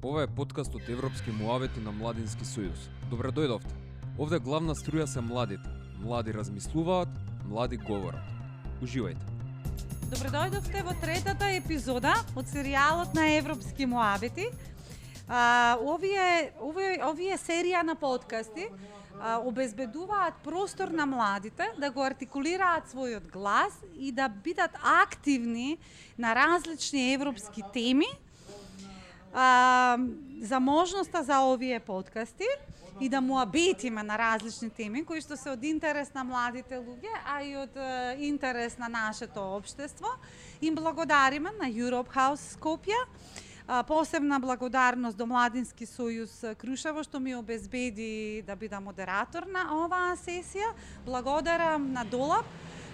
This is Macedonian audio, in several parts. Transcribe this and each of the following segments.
Ова е подкаст од Европски муавети на Младински сојуз. Добре дојдовте. Овде главна струја се младите. Млади размислуваат, млади говорат. Уживајте. Добре дојдовте во третата епизода од серијалот на Европски муавети. Овие серија на подкасти обезбедуваат простор на младите да го артикулираат својот глас и да бидат активни на различни европски теми. За можноста за овие подкасти и да муабетиме на различни теми кои што се од интерес на младите луѓе, а и од интерес на нашето општество. Им благодариме на Europe House Скопје. Посебна благодарност до Младински сојуз Крушево што ми обезбеди да бидам модератор на оваа сесија. Благодарам на Долап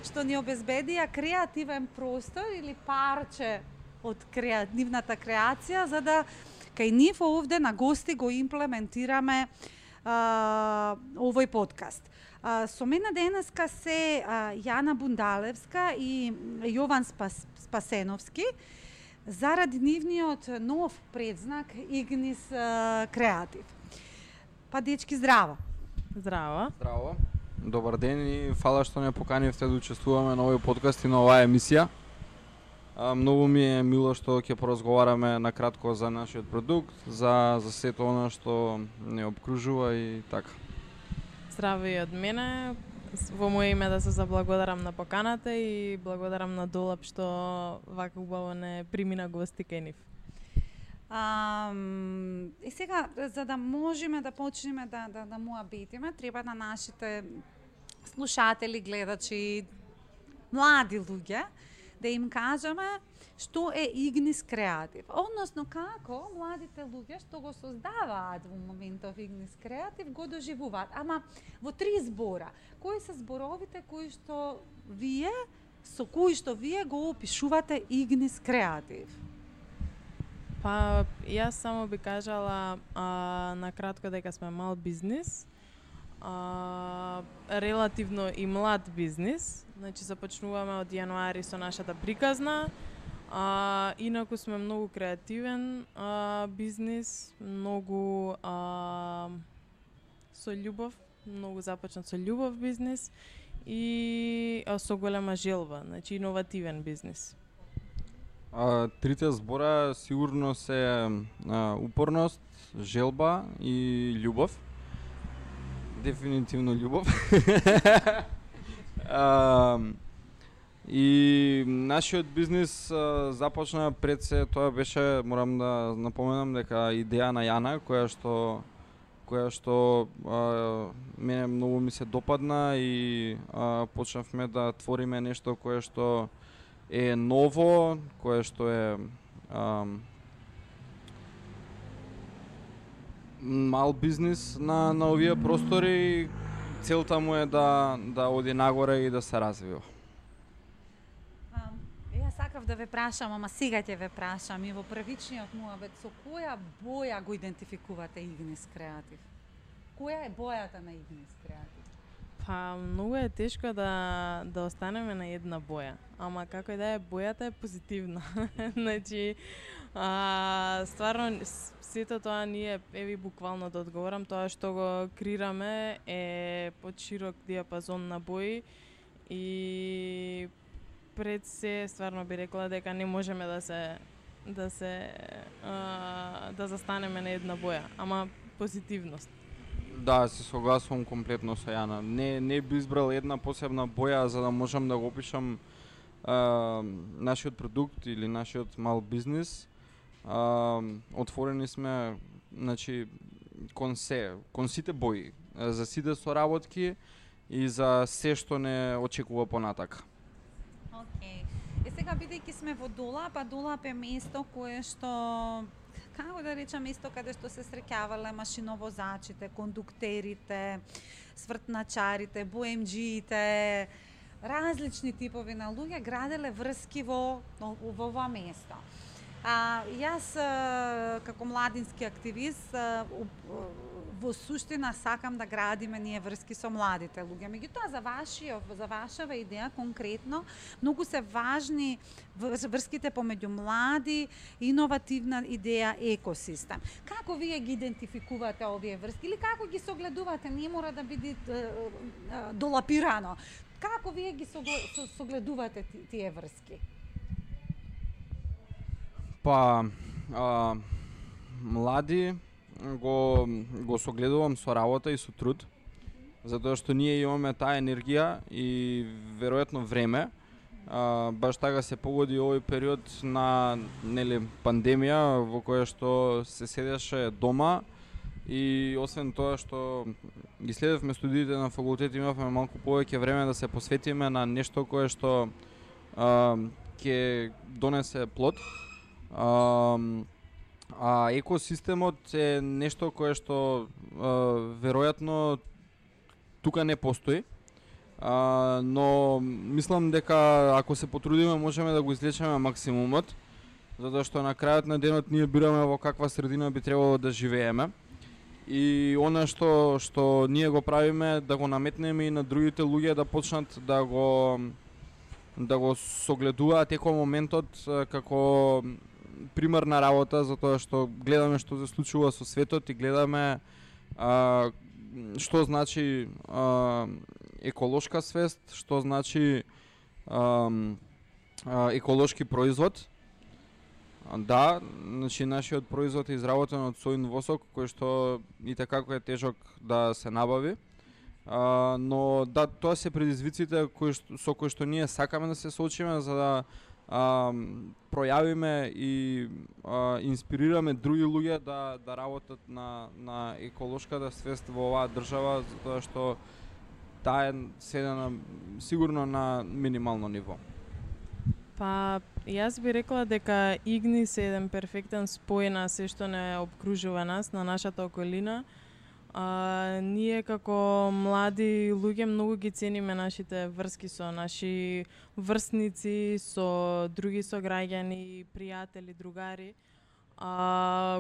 што ни обезбедија креативен простор или парче од креативната креација, за да кај нив овде на гости го имплементираме овој подкаст. Со мене денеска се Јана Бундалевска и Јован Спасеновски, заради нивниот нов предзнак Игнис Креатив. Па дечки, здраво! Здраво! Здраво! Добар ден и фала што не поканивте да учествуваме на овој подкаст и на оваа емисија. Многу ми е мило што ќе поразговараме на кратко за нашиот продукт, за сето она што не обкружува и така. Здраво и од мене. Во моје име да се заблагодарам на поканата и благодарам на Долап што вака убаво не примина гости кај нив. И сега, за да можеме да почнеме да муабетиме, треба на нашите слушатели, гледачи, млади луѓе, да им кажеме што е Игнис Креатив. Односно, како младите луѓе што го создаваат во моментов Игнис Креатив го доживуваат. Ама во 3 збора. Кои се зборовите со кои што вие го опишувате Игнис Креатив? Па, јас само би кажала на кратко дека сме мал бизнис, релативно и млад бизнис. Значи, започнуваме од јануари со нашата приказна. Инаку сме многу креативен бизнис, многу со љубов, многу започнат со љубов бизнис и со голема желба, значи иновативен бизнис. Трите збора сигурно се упорност, желба и љубов. Дефинитивно љубов. И нашиот бизнис започна пред се, тоа беше, морам да напоменам дека идеја на Јана, која што мене многу ми се допадна и почнавме да твориме нешто кое што е ново, кое што е мал бизнис на овие простори. Целта му е да оди нагоре и да се развива. Јас сакав да ве прашам, ама сега ќе ве прашам и во првичниот муабет, со која боја го идентификувате Игнис Креатив? Која е бојата на Игнис Креатив? Па, многу е тешко да останеме на една боја, ама како и да е, бојата е позитивна. Значи, стварно, сето тоа ние, еви буквално да одговорам, тоа што го креираме е под широк диапазон на бои и пред се стварно би рекла дека не можеме да застанеме на една боја, ама позитивност. Да, се согласувам комплетно со Јана. Не би избрал една посебна боја за да можам да го опишам нашиот продукт или нашиот мал бизнис. Отворени сме, значи, кон сите бои, за сите соработки и за се што не очекува понатака. Океј. И сега, бидејќи сме во Долап, а Долап е место кое што, како да речам, место каде што се среќавале машиновозачите, кондуктерите, свртначарите, боемџиите, различни типови на луѓе граделе врски во ова место. Јас како младински активист во суштина сакам да градиме ние врски со младите луѓе. Меѓутоа за вашава идеја конкретно многу се важни врските помеѓу млади, иновативна идеја, екосистем. Како вие ги идентификувате овие врски или како ги согледувате? Не мора да биде долапирано. Како вие ги согледувате тие врски? Па, млади го согледувам со работа и со труд, затоа што ние имаме таа енергија и веројатно време. Баш така се погоди овој период на пандемија во која што се седеше дома и освен тоа што ги следевме студиите на факултет, имавме малку повеќе време да се посветиме на нешто кое што ќе донесе плод. А екосистемот е нешто кое што веројатно тука не постои, но мислам дека ако се потрудиме можеме да го извлечеме максимумот, затоа што на крајот на денот ние бираме во каква средина би требало да живееме. И она што ние го правиме, да го наметнеме и на другите луѓе да почнат да го согледуваат екомоментот како примерна работа, затоа што гледаме што се случува со светот и гледаме што значи еколошка свест, што значи еколошки производ. Да, значи нашиот производ е изработен од сојн восок, кој што и така е тежок да се набави. Но да, тоа се предизвиците со кои што ние сакаме да се соочиме за да пројавиме и инспирираме други луѓе да работат на еколошката свест во оваа држава, затоа што таа е сведена сигурно на минимално ниво. Па, јас би рекла дека Игнис е еден перфектен спој на се што не обкружува нас, на нашата околина. Ние како млади луѓе многу ги цениме нашите врски со наши врсници, со други сограѓани, пријатели, другари.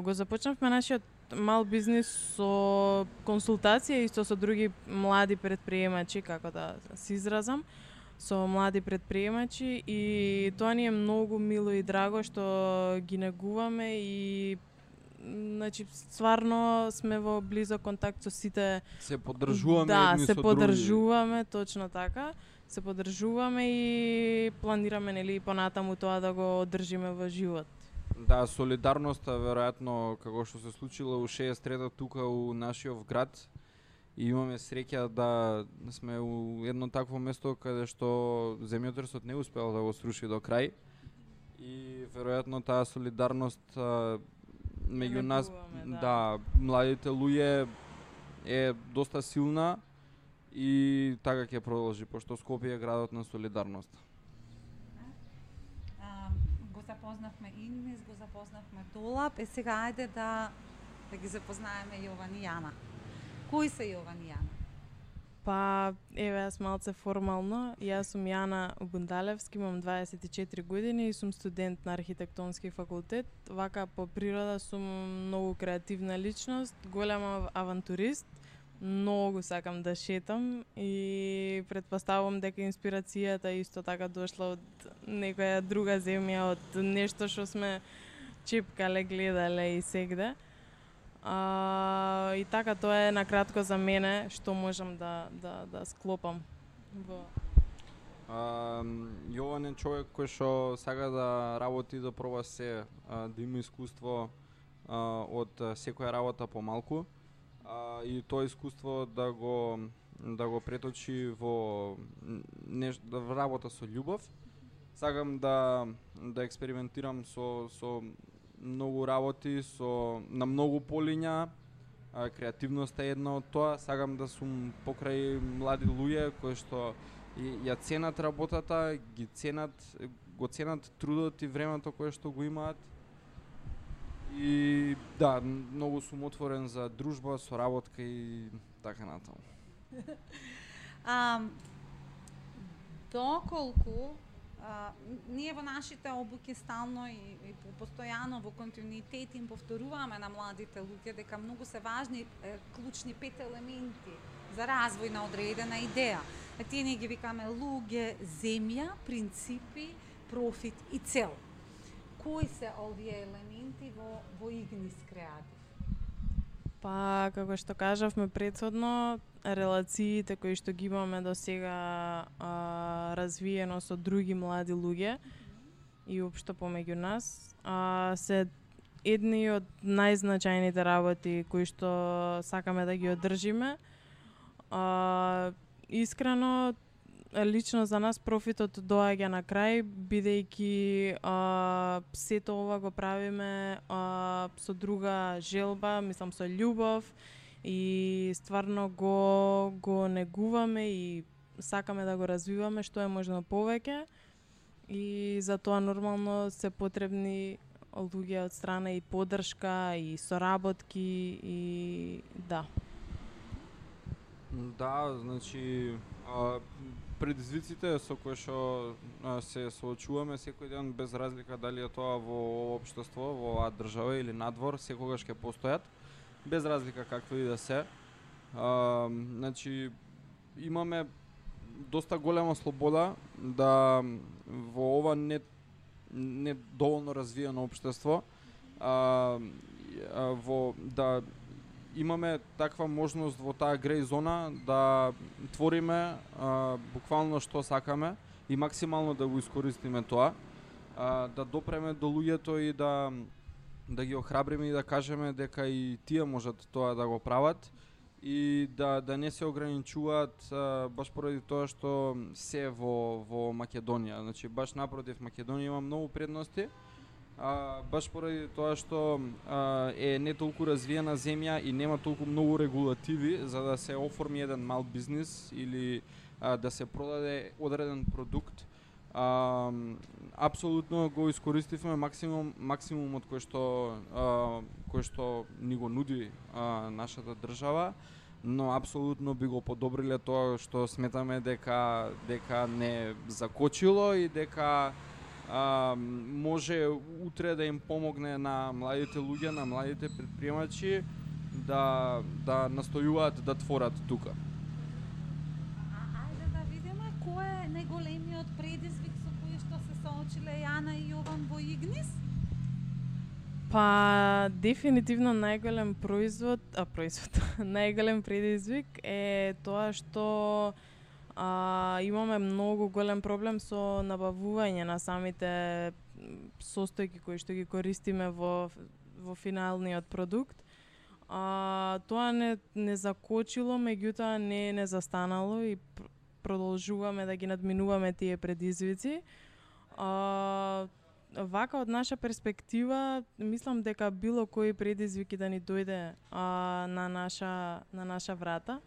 Го започнавме нашиот мал бизнис со консултација исто со други млади предприемачи, како да се изразам, со млади предприемачи и тоа ни е многу мило и драго што ги негуваме и значи стварно сме во близок контакт со сите. Се поддржуваме да, едни се со поддржуваме, точно така. Се поддржуваме и планираме нели понатаму тоа да го одржиме во живот. Да, солидарноста веројатно како што се случило у 63-та тука у нашиот град и имаме среќа да сме у едно такво место каде што земјотресот не успеал да го сруши до крај и веројатно таа солидарност меѓу нас, да, младите луѓе е доста силна и така ќе продолжи, пошто Скопје е градот на солидарност. Го запознавме Игнис, го запознавме Долап, сега ајде да ги запознаеме Јован и Јана. Кои се Јован и Јана? Па, еве, јас малце формално. Јас сум Јана Бундалевски, имам 24 години и сум студент на архитектонски факултет. Вака по природа сум многу креативна личност, голем авантурист, многу сакам да шетам и претпоставувам дека инспирацијата исто така дошла од некоја друга земја, од нешто што сме чепкале, гледале и сегде. И така тоа е накратко за мене што можам да склопам во. Јован е човек кој што сака да работи, да проба се, да има искуство од секоја работа помалку и тоа искуство да го преточи во работа со љубов. Сакам да експериментирам со многу работи, на многу полиња, креативноста е една од тоа. Сакам да сум покрај млади луѓе кои што ја ценат работата, го ценат трудот и времето кое што го имаат. И да, многу сум отворен за дружба, соработка и така натаму. Доколку ние во нашите обуки стално и постојано во континуитет им повторуваме на младите луѓе дека многу се важни клучни 5 елементи за развој на одредена идеја. Тие ние ги викаме луѓе, земја, принципи, профит и цел. Кои се овие елементи во Игнис Креатив? Па, како што кажавме претходно, релациите кои што ги имаме до сега развиено со други млади луѓе и општо помеѓу нас, се едни од најзначајните работи кои што сакаме да ги одржиме. Искрено, лично за нас профитот доаѓа на крај, бидејќи сето ова го правиме со друга желба, мислам со љубов и стварно го негуваме и сакаме да го развиваме што е можно повеќе и за тоа нормално се потребни луѓе од страна и поддршка и соработки и да. Да, значи предизвиците со кои што се соочуваме секој ден без разлика дали е тоа во општество, во оваа држава или надвор, секогаш ќе постојат, без разлика какви и да се. Значи имаме доста голема слобода да во ова не доволно развиено општество да имаме таква можност во таа греј зона да твориме буквално што сакаме и максимално да го искористиме тоа, да допреме до луѓето и да ги охрабриме и да кажеме дека и тие можат тоа да го прават и да не се ограничуваат баш поради тоа што се во Македонија. Значи баш напротив, Македонија има многу предности. Баш поради тоа што е не толку развиена земја и нема толку многу регулативи за да се оформи еден мал бизнис или да се продаде одреден продукт. Апсолутно го искористивме максимумот кој што ни го нуди нашата држава, но апсолутно би го подобриле тоа што сметаме дека не закочило и дека може утре да им помогне на младите луѓе, на младите предприемачи да настојуваат да творат тука. Ајде да видиме кој е најголемиот предизвик со кој што се соочиле Јана и Јован во Игнис? Па, дефинитивно најголем најголем предизвик е тоа што имаме многу голем проблем со набавување на самите состојки кои што ги користиме во финалниот продукт. Тоа не закочило, меѓутоа не застанало и продолжуваме да ги надминуваме тие предизвици. Вака од наша перспектива, мислам дека било кој предизвик да ни дојде на наша врата,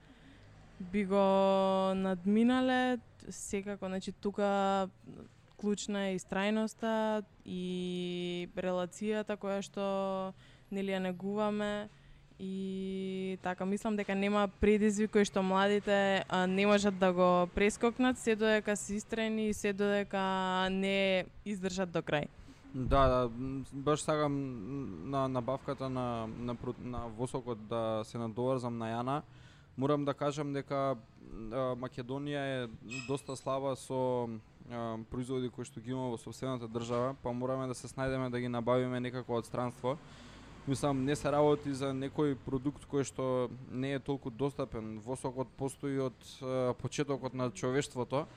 би го надминале секако. Значи тука клучна е истрајноста и релацијата која што нели ја негуваме и така мислам дека нема предизвик кој што младите не можат да го прескокнат се додека се истрајни и се додека не издржат до крај. Да, баш сакам на набавката на восокот да се надоврзам на Јана. Морам да кажам дека Македонија е доста слаба со производи кои што ги има во сопствената држава, па мораме да се снајдеме да ги набавиме некако од странство. Мислам, не се работи за некој продукт кој што не е толку достапен. Восокот постои од почетокот на човештвото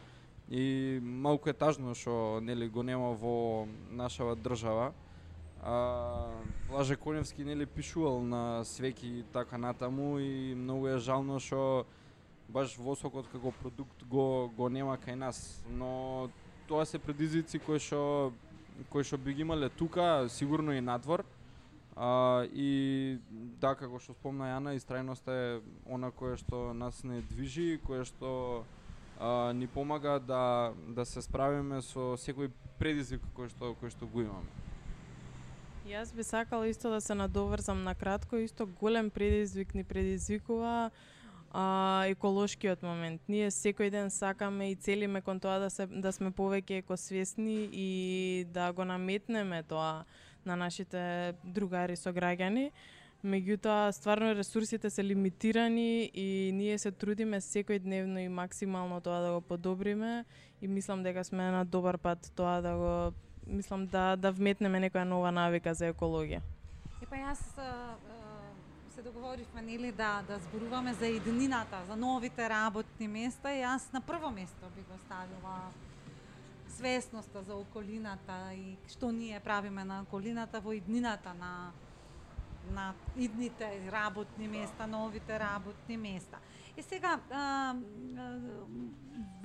и малку е тажно што нели го нема во нашава држава. Лаже Коневски нели пишувал на свеки така натаму и многу е жално што баш восокот како продукт го нема кај нас, но тоа се предизвици кои што би ги имале тука, сигурно и надвор. И да, како што спомна Јана, истрајноста е она кое што нас не движи, кое што ни помага да се справиме со секој предизвик кој што го имаме. Јас би сакала исто да се надоврзам на кратко, исто голем предизвик ни предизвикува еколошкиот момент. Ние секој ден сакаме и целиме кон тоа да сме повеќе екосвесни и да го наметнеме тоа на нашите другари сограѓани. Меѓутоа, стварно ресурсите се лимитирани и ние се трудиме секојдневно и максимално тоа да го подобриме и мислам дека сме на добар пат тоа да вметнеме некоја нова навика за екологија. Епа јас се договоривме нели да зборуваме за иднината, за новите работни места и јас на прво место би го ставила свесноста за околината и што ние правиме на околината во иднината на идните работни места, новите работни места. И сега,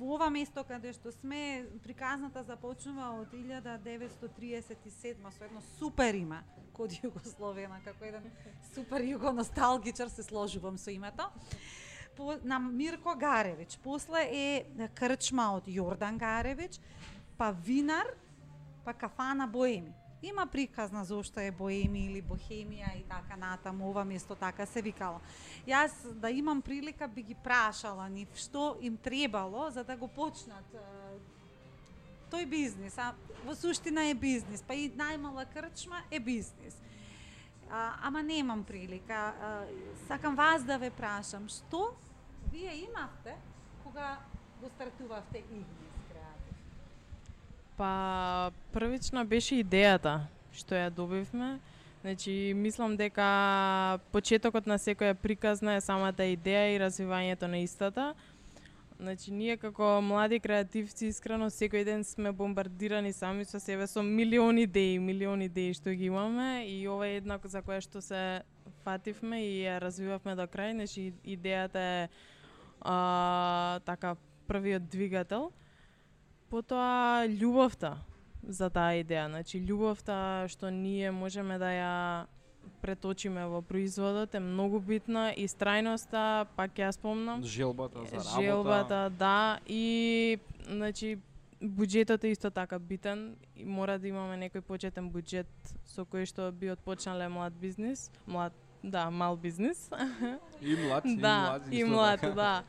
во ова место каде што сме, приказната започнува од 1937 со едно супер име, код Југословена, како еден супер југоносталгичар се сложувам со името. На Мирко Гаревич, после е крчма од Јордан Гаревич, па винар, па кафана Боеми. Има приказна зошто е Боеми или Бохемија и така натаму, ова место така се викало. Јас да имам прилика би ги прашала нив што им требало за да го почнат тој бизнис, а во суштина е бизнис, па и најмала крчма е бизнис. Ама немам прилика. Сакам вас да ве прашам, што вие имавте кога го стартувавте Игнис? Па првична беше идејата што ја добивме. Значи мислам дека почетокот на секоја приказна е самата идеја и развивањето на истата. Значи ние како млади креативци искрено секој ден сме бомбардирани сами со себе со милиони идеи што ги имаме и ова е една за која што се фативме и ја развивавме до крај. Значи идејата е така првиот двигател. Потоа љубовта за таа идеја, значи љубовта што ние можеме да ја преточиме во производот е многу битна и страјноста, пак ја спомнам. Желбата за работа. Желбата, да, и значи буџетот е исто така битен и мора да имаме некој почетен буџет со кој што би отпочнале мал бизнис. И млад, и млад, да.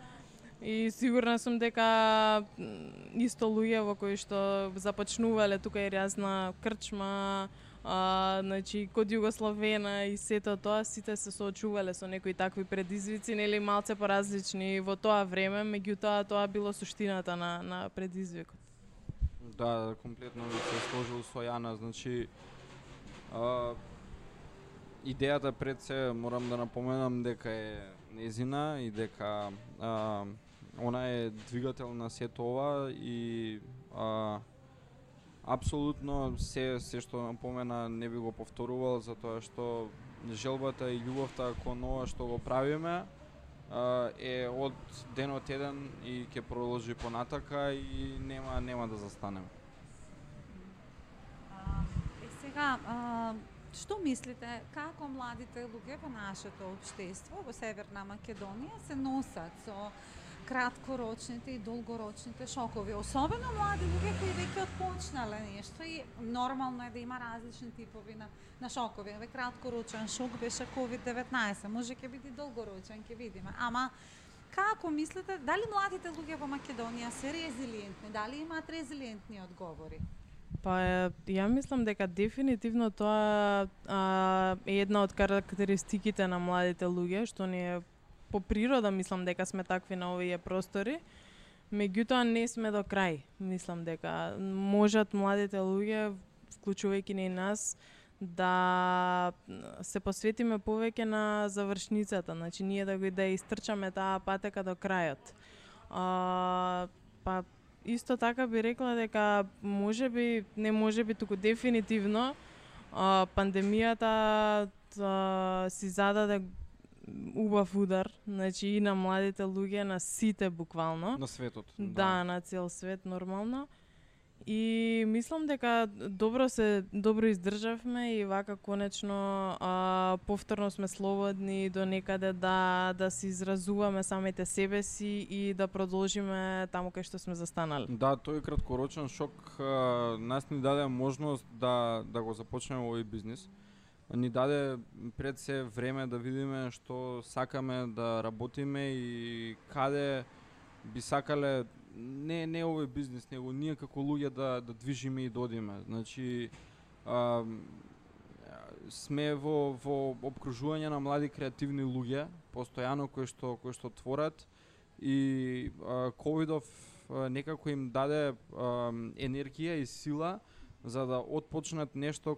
И сигурна сум дека исто луѓе во кои што започнувале тука и разна крчма, значи код Југословена и сето тоа, сите се соочувале со некои такви предизвици, нели малце поразлични во тоа време, меѓутоа тоа било суштината на предизвикот. Да, комплетно се сложил со Јана, значи идејата пред се морам да напоменам дека е незина и дека она е двигател на сето ова и апсолутно се што напомена не би го повторувал, затоа што желбата и љубовта кон ова што го правиме е од денот еден и ќе продолжи понатака и нема да застанеме. Сега, што мислите, како младите луѓе во нашето општество во Северна Македонија се носат со краткорочните и долгорочните шокови, особено млади луѓе кои веќе отпочнале нешто и нормално е да има различни типови на шокови. Краткорочен шок беше COVID-19, може ќе биде долгорочен, ќе видиме. Ама како мислите, дали младите луѓе во Македонија се резилиентни, дали имаат резилиентни одговори? Па ја мислам дека дефинитивно тоа е една од карактеристиките на младите луѓе, што ние по природа мислам дека сме такви на овие простори, меѓутоа не сме до крај. Мислам дека можат младите луѓе, вклучувајќи и нас, да се посветиме повеќе на завршницата, значи ние да истрчаме таа патека до крајот. Па исто така би рекла дека туку дефинитивно пандемијата си зададе убав удар, значи и на младите луѓе, на сите буквално. На светот. Да, на цел свет нормално. И мислам дека добро издржавме и вака конечно повторно сме слободни до некаде да се изразуваме самите себе си и да продолжиме таму кај што сме застанали. Да, тој краткорочен шок нас ни даде можност да го започнеме овој бизнис. ни даде пред се време да видиме што сакаме да работиме и каде би сакале не овој бизнис, него ние како луѓе да движиме и да одиме. Значи сме во опкружување на млади креативни луѓе, постојано кои што творат и ковидов некако им даде енергија и сила за да отпочнат нешто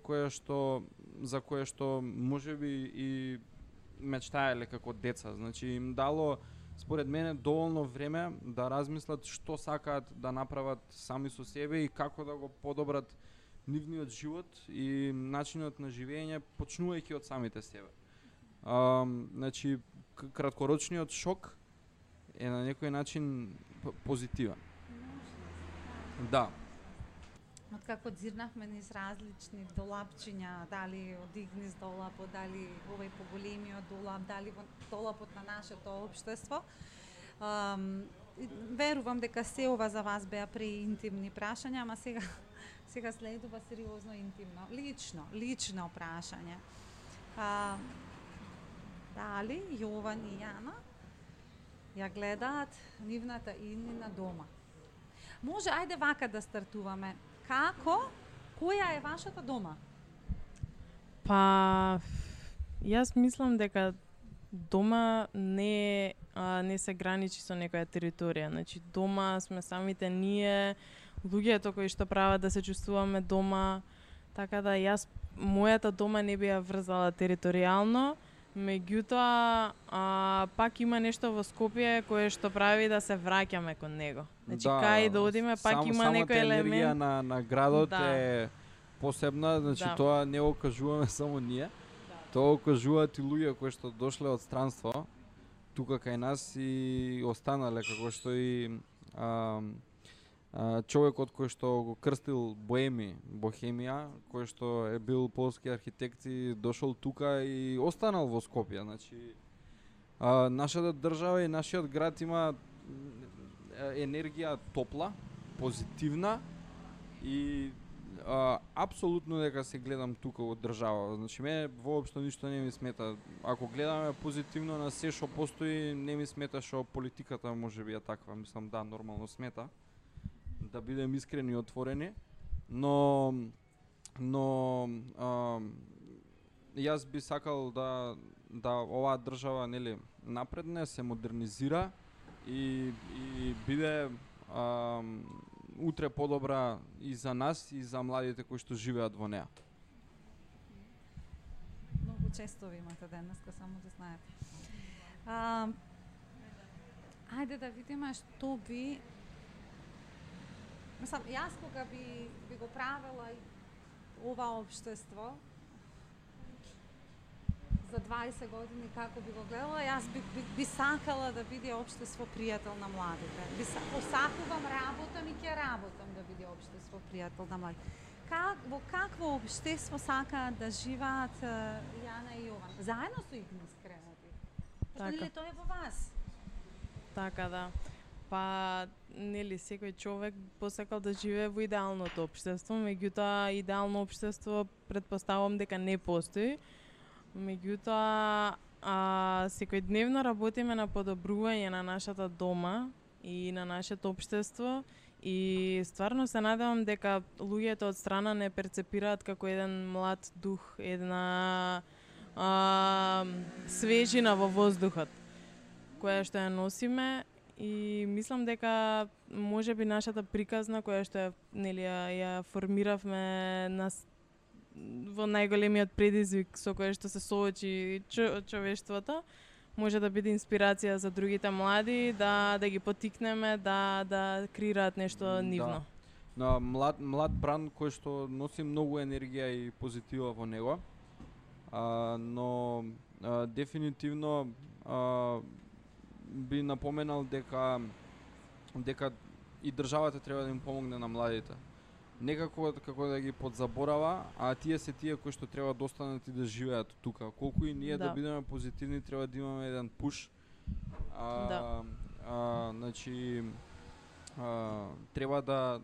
за кое што можеби и мечтаеле како деца. Значи им дало според мене доволно време да размислат што сакаат да направат сами со себе и како да го подобрат нивниот живот и начинот на живење почнувајќи од самите себе. Значи краткорочниот шок е на некој начин позитивен. Да. Откако дзирнавме низ различни долапчиња, дали од Игнис долапот, дали овој поголемиот долап, дали во долапот на нашето општество, верувам дека се ова за вас беа преинтимни прашања, ама сега следува сериозно интимно, лично прашање. Дали Јован и Јана ја гледаат нивната иднина дома? Може, ајде вака да стартуваме. Која е вашата дома? Па, јас мислам дека дома не се граничи со некоја територија. Значи, дома сме самите ние, луѓето кои што прават да се чувствуваме дома, така да мојата дома не би ја врзала територијално, меѓутоа пак има нешто во Скопје кое што прави да се враќаме кон него. Значи кај да одиме пак има некој елемент. Енергија на градот е посебна, значи тоа не го кажуваме само ние. Тоа го кажуваат и луѓе кои што дошле од странство тука кај нас и останале, како што и човекот кој што го крстил Бохемија, кој што е бил полски архитект и дошол тука и останал во Скопје. Значи, нашата држава и нашиот град има енергија топла, позитивна и апсолутно дека се гледам тука од држава. Значи, мене воопшто ништо не ми смета. Ако гледаме позитивно на се што постои, не ми смета што политиката можеби е таква. Мислам, да, нормално смета. Да бидем искрени и отворени, но јас би сакал да оваа држава, нели, напредне, се модернизира и биде утре подобра и за нас и за младите кои што живеат во неа. Многу често ви имате денеска, само да знаете. Ајде да видиме што би... Мислам, јас кога би го правела ова општество за 20 години како би го гледала, јас би сакала да биде општество пријател на младите. Посакувам, работам и ќе работам да биде општество пријател на младите. Во какво општество сакаат да живеат Јана и Јован? Заедно со Игнис Креатив. Нели тоа е во вас? Така да. Па, нели, секој човек посакал да живее во идеалното општество, меѓутоа идеално општество претпоставувам дека не постои. Меѓутоа, секојдневно работиме на подобрување на нашата дома и на нашето општество и стварно се надевам дека луѓето од страна не перцепираат како еден млад дух, една свежина во воздухот која што ја носиме. И мислам дека можеби нашата приказна која што ја формиравме во најголемиот предизвик со кој што се соочи човештвото, може да биде инспирација за другите млади, да ги поттикнеме да креираат нешто нивно. Да. Млад бранд кој што носи многу енергија и позитива во него, но дефинитивно би напоменал дека и државата треба да им помогне на младите. Некако како да ги подзаборава, а тие се тие кои што треба да останат и да живеат тука. Колку и ние да бидеме позитивни, треба да имаме еден пуш. Значи треба да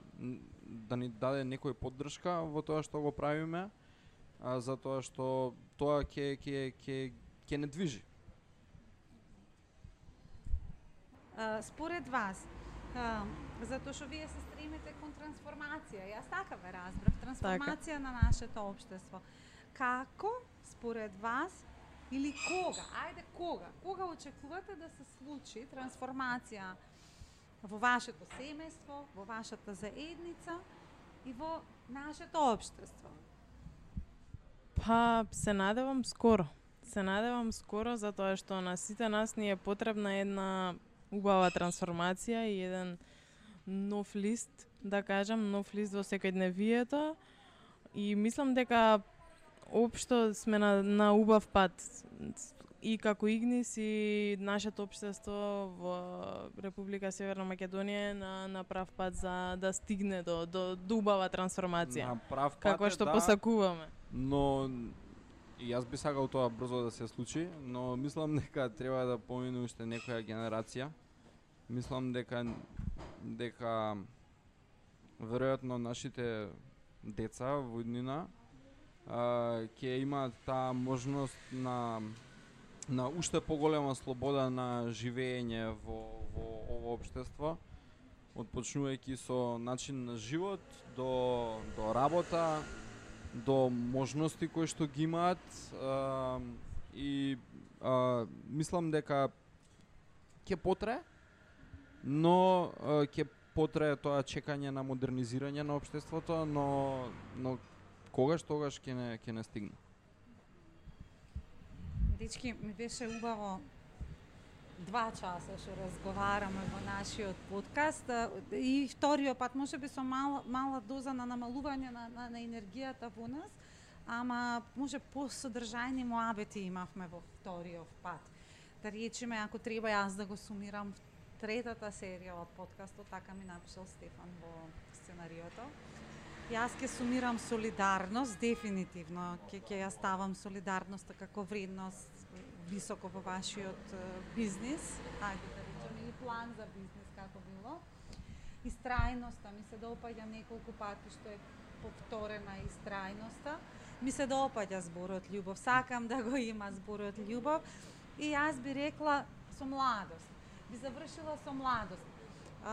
ни даде некој поддршка во тоа што го правиме затоа што тоа ќе не движи. Според вас, затоа што вие се стремите кон трансформација, јас така ве разбрав, трансформација на нашето општество. Како, според вас, или кога очекувате да се случи трансформација во вашето семејство, во вашата заедница и во нашето општество? Па, се надевам скоро. Се надевам скоро, затоа што на сите нас ни е потребна една убава трансформација и еден нов лист, да кажам, нов лист во секојдневието. И мислам дека општо сме на убав пат. И како Игнис и нашето општество во Република Северна Македонија на прав пат за да стигне до убава трансформација. На прав пат како што посакуваме. Но и јас би сакал тоа брзо да се случи, но мислам дека треба да помине уште некоја генерација. Мислам дека веројатно нашите деца во иднина ќе имаат таа можност на уште поголема слобода на живење во ово општество, отпочнувајќи со начин на живот до работа, до можности кои што ги имаат и мислам дека ќе потрае, но ќе потрае тоа чекање на модернизирање на општеството, но тогаш ќе не стигне. Дечки, ми беше убаво 2 часа што разговараме во нашиот подкаст и вториот пат можеби со мала доза на намалување на енергијата во нас, ама може посодржајни муабети имавме во вториот пат. Да речеме, ако треба јас да го сумирам третата серија од подкастот, така ми напишал Стефан во сценариото. Јас ќе сумирам солидарност, дефинитивно ќе ја ставам солидарноста како вредност високо во вашиот бизнис, ајде да речеме, или план за бизнис како било. Истрајноста, ми се допаѓа неколку пати што е повторена истрајноста. Ми се допаѓа зборот љубов, сакам да го има зборот љубов и јас би рекла со младост. Би завршила со младост.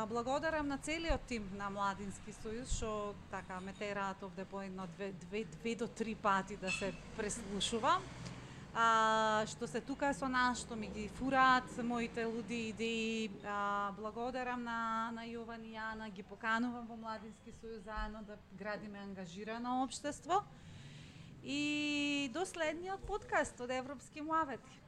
Благодарам на целиот тим на Младински сојуз што така ме тераат овде по едно 2 до 3 пати да се преслушувам. Што се тука со нас, што ми ги фураат моите луди идеи. Благодарам на Јован и Јана, ги поканувам во Младински сојуз заедно да градиме ангажирано општество. И до следниот подкаст од Европски муавети.